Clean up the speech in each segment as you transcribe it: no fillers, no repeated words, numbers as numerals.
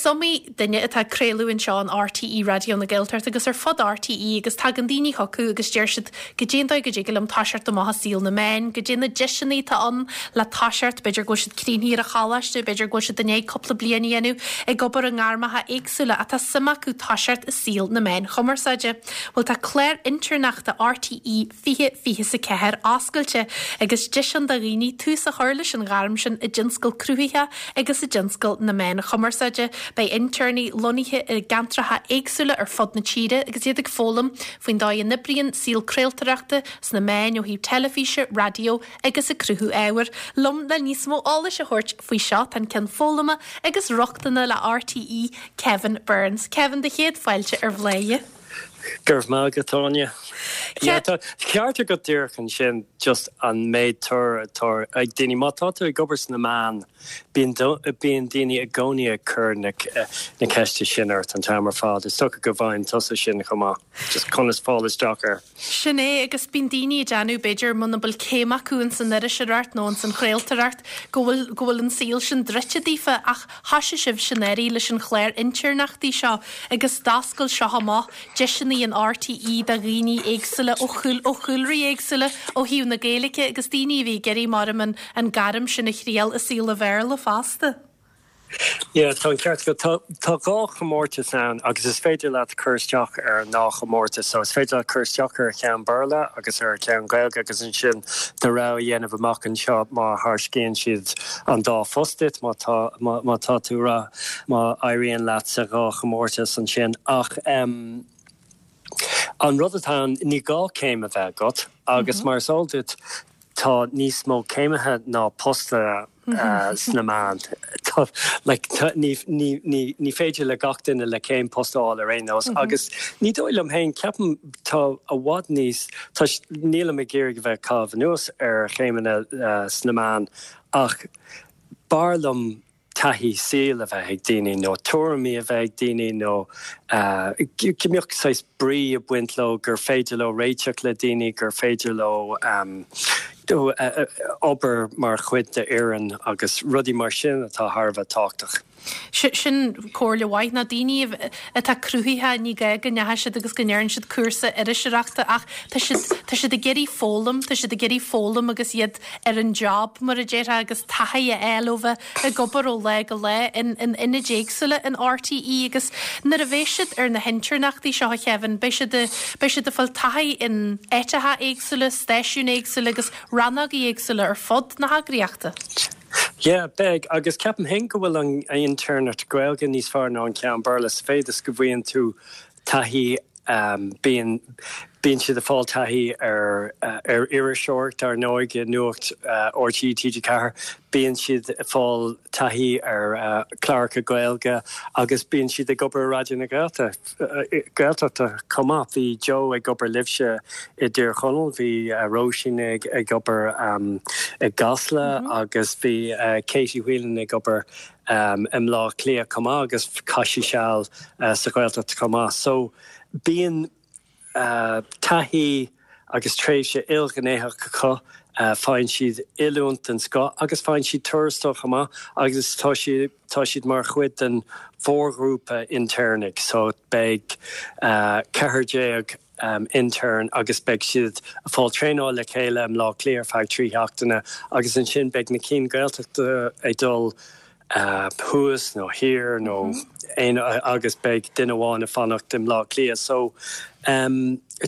iomaí duine atá ag craoladh anseo in RTÉ Raidió na Gaeltachta agus ar fud RTÉ agus tagann daoine chucu agus deir siad goidé an dóigh go dtig liom toiseacht amach i saol na meán, goidé na deiseanna atá ann le toiseacht, b'fhéidir go bhfuil siad críochnaithe ar an choláiste, b'fhéidir go bhfuil siad i ndiaidh cúpla bliain a dhéanamh ag obair i ngairmeacha éagsúla ach tá suim acu toiseacht i saol na meáin chumarsáide. Bhuel tá clár intéirneachta RTÉ 2024 oscailte agus deis ann do dhaoine tús a chur leis an ghairm sin i dtionscal cruthaitheach agus i dtionscal na meán chumarsáide. Beidh intéirnigh lonnaithe i gceantracha éagsúla ar fud na tíre agus iad ag foghlaim faoin dóigh a n-oibríonn saol craoltóireachta sna meáin ó thaobh teilifíse, raidió agus ag cruthú ábhair. Liom le níos mó eolais a thabhairt faoi seo tá an Ceann Foghlama agus Rochtana le RTÉ, Kevin Burns. Kevin, do chéad fáilte ar Bhladhaire. Go raibh maith agat, Áine. Yeah, tá ceart agat díreach ansin, just an méid tóir atá ag daoine. Má tá tú ag obair sna meáin, bíonn bíonn daoine i gcónaí ag cur na na ceiste sin ort an t-am ar fad. Is dócha go bhfaigheann tusa sin chomh maith, just conas fáil isteach air. Sin é, agus bíonn daoine ag déanamh, b'fhéidir, muna bhfuil céim acu ins an iriseoireacht nó ins an chraoltóireacht, go bhfuil, go bhfuil an saol sin druidte daofa, ach thoisigh sibhse anuraidh leis an chlár intéirneachtaí seo agus d'oscail seo amach deiseanna in RTÉ do dhaoine éagsúla ó chúl, ó chúlraí éagsúla ó thaobh na Gaeilge agus daoine a bhí ag iarraidh, maram, an, an gairm sin a thriail i saol an Bhéarla fosta. Yeah, tá an ceart agat. Tá, tá dhá chomórtas ann agus is féidir leat cur isteach ar an ndá chomórtas. So is féidir leat cur isteach ar cheann Béarla agus ar cheann Gaeilge agus ansin do rogha a dhéanamh amach anseo má thairscíonn siad an dá phost duit, má tá, má, má tá tú ra, má éiríonn leat sa dhá chomórtas ansin. Ach em, an rud atá ann, ní gá céim a bheith agat agus mar is eol duit, tá níos mó céimithe ná postanna sna meáin. Like, ní, ní, ní, ní féidir le gach duine le céim post a fháil ar aon nós agus ní dóigh liom féin, ceapaim tá i bhfad níos, tá, nílim ag iarraidh a bheith ag caitheamh anuas ar chéimeanna sna meáin ach b'fhearr liom taithí saoil a bheith ag daoine nó tuairimí a bheith ag daoine nó go mbeadh saghas brí ag baint leo, gur féidir leo réiteach le daoine, gur féidir leo obair mar chuid d'fhoireann agus rudaí mar sin atá thar a bheith tábhachtach. Sin comhairle mhaith, na daoine atá cruthaitheach, ní gá go ndeachaigh siad agus go ndearna siad cúrsa iriseoireachta ach tá siad, tá siad ag iarraidh foghlaim, tá siad ag iarraidh foghlaim agus iad ar an job, mar a déarfá, agus taithí a fháil ó bheith ag obair ó lá go lá in ionaid éagsúla in RTÉ agus nuair a bheidh siad ar na hintéirneachtaí seo, a Kevin, beidh siad, beidh siad ag fáil taithí in áiteacha éagsúla, stáisiúin éagsúla agus rannógaí éagsúla ar fud na heagraíochta. Yeah, beidh, agus ceapaim féin go bhfuil an intéirneacht Gaeilge níos fearr ná an ceann Béarla sa mhéid is go bhfaigheann tú taithí Bíonn bíonn siad ag fáil taithí ar ar iriseoireacht, ar ndóigh, i Nuacht RTÉ TG4. Bíonn siad ag fáil taithí ar chláracha Gaeilge agus bíonn siad ag obair i Raidió na Gaeltachta chomh maith. Bhí Joe ag obair libhse i dTír Chonaill, bhí Róisín ag ag obair i gCasla agus bhí Katie Whelan ag obair i mBleá Cliath chomh maith agus chaith sí seal sa Ghaeltacht chomh maith. So bíonn taithí agus tréimhse ilghnéitheach acu, faigheann siad oiliúint den scoth agus faigheann siad tuarastal chomh maith agus tá siad tá siad mar chuid den mhórghrúpa intéirnigh so beidh 14 intern agus beidh siad ag fáil traenáil le chéile i mBleá Cliath ar feadh 3 sheachtaine agus ansin beidh na cinn Gaeltachta ag dul thuas nó thiar nó aon agus beidh duine amháin ag fanacht i mBleá Cliath. So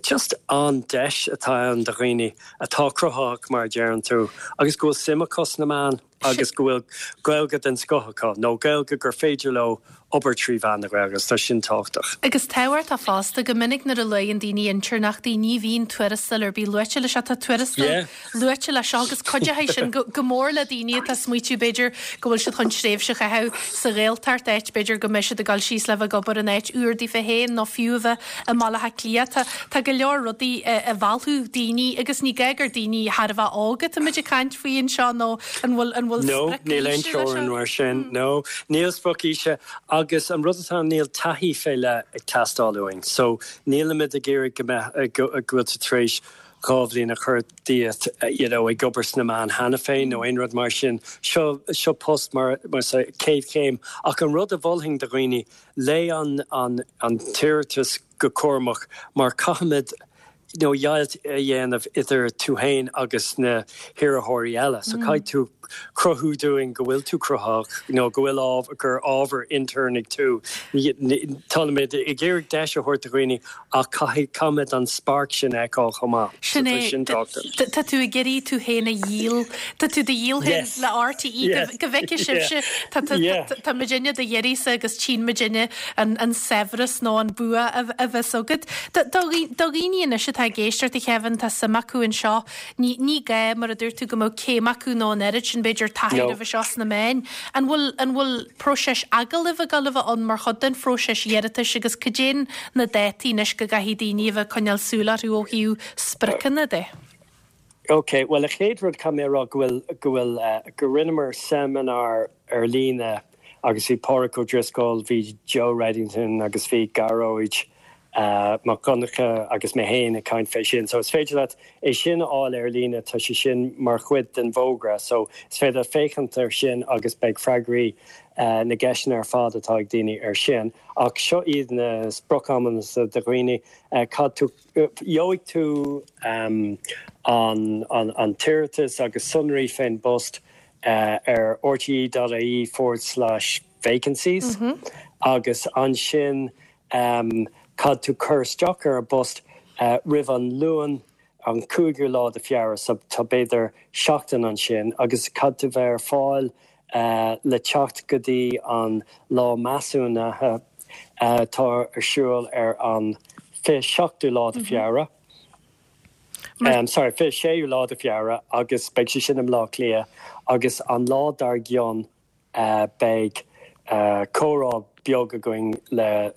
just an-deis atá ann do dhaoine atá cruthaitheach mar a deireann tú agus go bhfuil suim acu sna meáin. agus go bhfuil Gaeilge den scoth acu, nó Gaeilge gur féidir leo obair trí mheán na Gaeilge, agus tá sin tábhachtach. Agus tábhachtach fosta, go minic nuair a luann daoine intéirneachtaí, ní bhíonn tuarastal ar bith luaite leis seo. Tá tuarastal luaite leis seo agus cuideoidh sin go mór le daoine atá ag smaoitiú, b'fhéidir, go bhfuil siad chun tréimhse a chaitheamh sa Ghaeltacht, áit, b'fhéidir, go mbeidh siad ag dul síos le bheith ag obair in áit úr daofa féin nó fiú a bheith i mBaile Átha Cliath. Tá, tá go leor rudaí a mheallfadh daoine agus ní gá gur daoine thar a bheith óg atáimid ag caint faoi anseo nó an bhfuil, an bhfuil No, sprioc níl aon aoise leis teorainn seo? mar sin. No, níl sprioc aoise agus an rud atá ann níl taithí fé leith ag teastáil uainn. So nílimid ag iarraidh go mbeadh, go bhfuil tú tar éis. 2 bhliain a chur díot you know ag obair sna meáin cheana féin nó aon rud mar sin. Seo seo post mar mar sa chéad chéim. Ach an rud a mholfainn do dhaoine, léigh an an an t-iarratas go cúramach mar caithfimid you know deighilt a dhéanamh idir tú féin agus na hiarrthóirí eile. So caithfidh tú cruthú dúinn go bhfuil tú cruthaitheach nó go bhfuil ábhar, gur ábhar intéirneach tú. Táimid ag iarraidh deis a thabhairt do dhaoine ach caithfidh, caithfimid an spark sin a fheiceáil chomh maith. Sin So tá é. sin tábhachtach. Tá tú ag iarraidh tú féin a dhíol, tá tú do dhíol féin Yes. le RTÉ Yeah. go bhfeicfidh Yeah. sibhse, tá, tá, Yeah. tá, tá muidinne do dh'iarraidhse agus tchíonn muidinne an, an saibhreas nó an bua a, a bheas agat. Do, do, do dhaoine anois atá ag éisteacht a Kevin, tá suim acu anseo, Ní, ní gá, mar a dúirt tú, go mbeadh céim acu nó an oiread sin, b'fhéidir, taithí No. roimhe seo sna meáin. An bhfuil, an bhfuil próiseas agallaimh ag dul a bheith ann mar chuid den phróiseas iarratais agus cad é na dátaí anois go gcaithfidh daoine a bheith ag coinneáil súil orthu ó thaobh spriocanna de? Ok, bhuel, an chéad rud caithfidh mé a rá go bhfuil, go bhfuil, go rinneamar seimineár ar líne agus bhí Pádraic Ó Drisceoil, bhí Joe Reddington agus bhí Gearóid Mac Donncha agus mé féin ag caint fé sin. So is féidir leat é sin a fháil ar líne, tá sé sin mar chuid den bhfógra. So is féidir leat féachaint ar sin agus beidh freagraí na gceisteanna ar fad atá ag daoine ar sin. Ach seo iad na sprioc-amanna do dhaoine. Caithfidh tú, gheobhaidh tú an an t-iarratas agus sonraí fén bpost ar rte.ie forward slash vacancies agus ansin Caithfidh tú cur isteach ar an bpost roimh an Luan an 5ú lá de Feabhra, so tá b'fhéidir seachtain ansin, agus caithfidh tú bheith ar fáil le teacht go dtí an lá measúnaithe atá ar siúl ar an 27ú lá de Feabhra. Sorry, 26ú lá de Feabhra agus beidh sé sin i mBleá Cliath agus an lá dár gcionn Beidh comhrá beag againn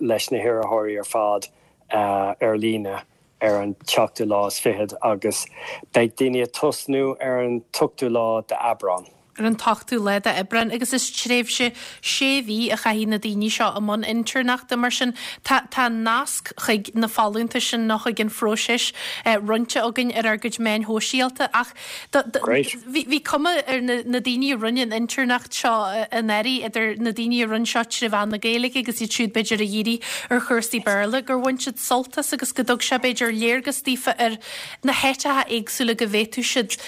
leis na hiarrthóirí ar fad ar líne ar an tseachtú lá is fichead agus beidh daoine ag tosnú ar an t-ochtú lá d'Aibreán. ar an t-ochtú lá d'Aibreán agus is tréimhse sé mhí a chaithfidh na daoine seo i mbun intéirneachta. Mar sin tá tá nasc chuig na folúntais sin nó chuig an phróiseas roinnte againn ar ár gcuid meáin shóisialta ach Great. Bhí cuma ar na daoine a rinne an intéirneacht seo anuraidh, idir na daoine a rinne seo tré mheán na Gaeilge agus iad siúd b'fhéidir a dhírigh ar chúrsaí Béarla, gur bhain siad sult as agus go dtug sé b'fhéidir léargas daofa ar na háiteacha éagsúla go bhféadfadh siad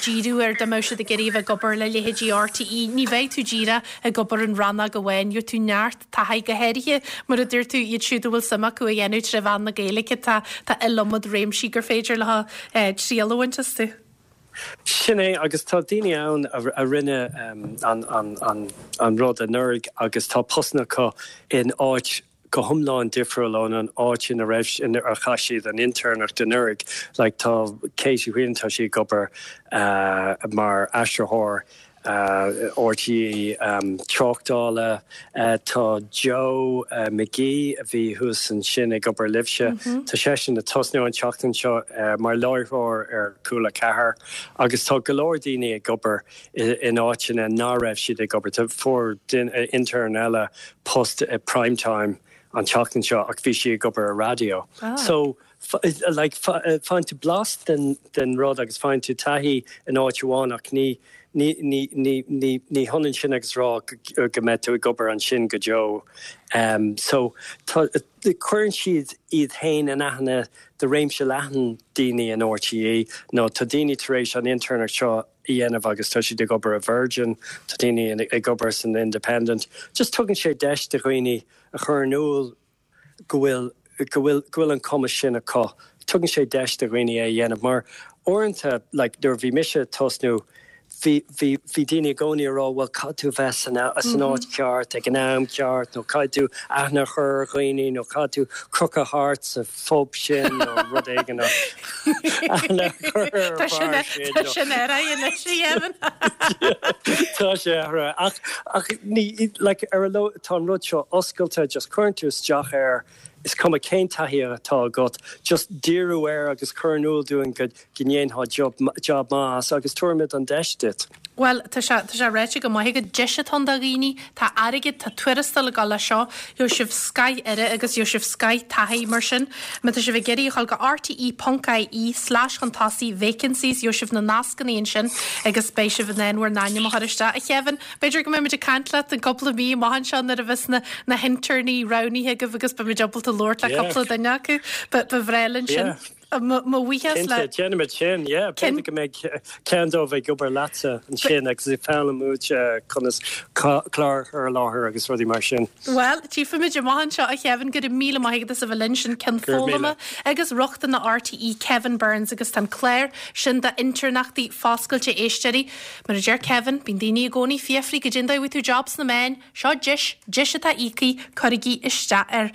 díriú air dá mbeadh siad ag iarraidh a bheith ag obair le leithéidí RTÉ. Ní bheidh tú díreach ag obair in rannóg amháin, gheobhaidh tú neart taithí, go háirithe, mar a dúirt tú, iad siúd a bhfuil suim acu a dhéanamh tré mheán na Gaeilge, tá tá iliomad réimsí gur féidir leo triail a bhaint astu. Sin é, agus tá daoine ann a rinne an rud anuraidh agus tá postanna acu in áit go hiomlán difriúil ón an áit ina raibh, inar chaith siad an intéirneacht anuraidh. Like tá Katie Whelan, tá sí ag obair mar aistritheoir RTÉ tráchtála. Tá Joe McGee, a bhí thuas ansin ag obair libhse, tá seisean ag tosnú an tseachtain seo mar láithreoir ar Cúla 4 agus tá go leor daoine ag obair in áiteanna ná raibh siad ag obair. Tá fuair intern eile post i Prime Time an tseachtain seo ach bhí sí ag obair ar raidió. So like faigheann tú blas den den rud agus faigheann tú taithí in áit amháin ach ní ní ní ní ní ní hionann sin agus rá go go mbeidh tú ag obair ansin go deo. Um, so tá cuireann siad iad féin in aithne do réimse leathan daoine in RTÉ nó tá daoine tar éis an intéirneacht seo a dhéanamh agus tá siad ag obair i Virgin, tá daoine ag obair san Independent. Just tugann sé deis do dhaoine a chur in iúl go bhfuil, go bhfuil, go bhfuil an cumas sin acu. Tugann sé deis do dhaoine é a dhéanamh mar uaireanta, like, nuair a bhí mise ag tosnú, bhí, bhí, bhí daoine i gcónaí ag rá bhuel caithfidh tú bheith san, san áit cheart ag an am ceart nó caithfidh tú aithne a chur ar dhaoine nó caithfidh tú crochadh thart sa phub sin nó rud éigin nó aithne a chur ar Tá sin, bheár sin tá nó sin athraithe anois, a Kevin. Tá sé athraithe ach, ach ní, like, ar a laghad tá an rud seo oscailte, just cuireann tú isteach air. Is cuma cén taithí atá agat, just díriú air agus cur in iúl dúinn go ndéanfá job maith as agus tabharfaimid an deis duit. Bhuel, tá sé, tá sé ráite go maith agat, deis atá ann do dhaoine, tá airgead, tá tuarastal ag dul leis seo, gheobhaidh sibh scoth aire agus gheobhaidh sibh scoth taithí, mar sin, má tá sibh ag iarraidh a dhul go rte ponc ie slash chun tosaigh vacancies, gheobhaidh sibh na nascanna ansin agus beidh sibh in ann bhur n-ainm a chur isteach. A Kevin, b'fhéidir go mbeimid ag caint leat i gcúpla mí amach anseo nuair a bheas na, na hinternaí roghnaithe agaibh agus beimid ábalta labhairt le cúpla duine acu. Ba, ba bhreá linn sin. Mo bhuíochas le. Cinnte, déanfaimid sin, yeah. B'fhéidir go mbeidh ceann dóibh ag obair leatsa ansin agus ag foghlaim uait conas clár a chur i láthair agus rudaí mar sin. Bhuel, tchífimid amach anseo, a Kevin, go raibh míle maith agat as a bheith linn. Sin Ceann Foghlama agus Rochtana RTÉ, Kevin Burns, agus tá an clár sin d'intearnachtaí foscailte, a éisteoirí. Mar a deir Kevin, bíonn daoine i gcónaí ag fiafraí goidé an dóigh a bhfaighidh tú job sna meáin, seo deis, deis atá íoctha, cuirigí isteach air.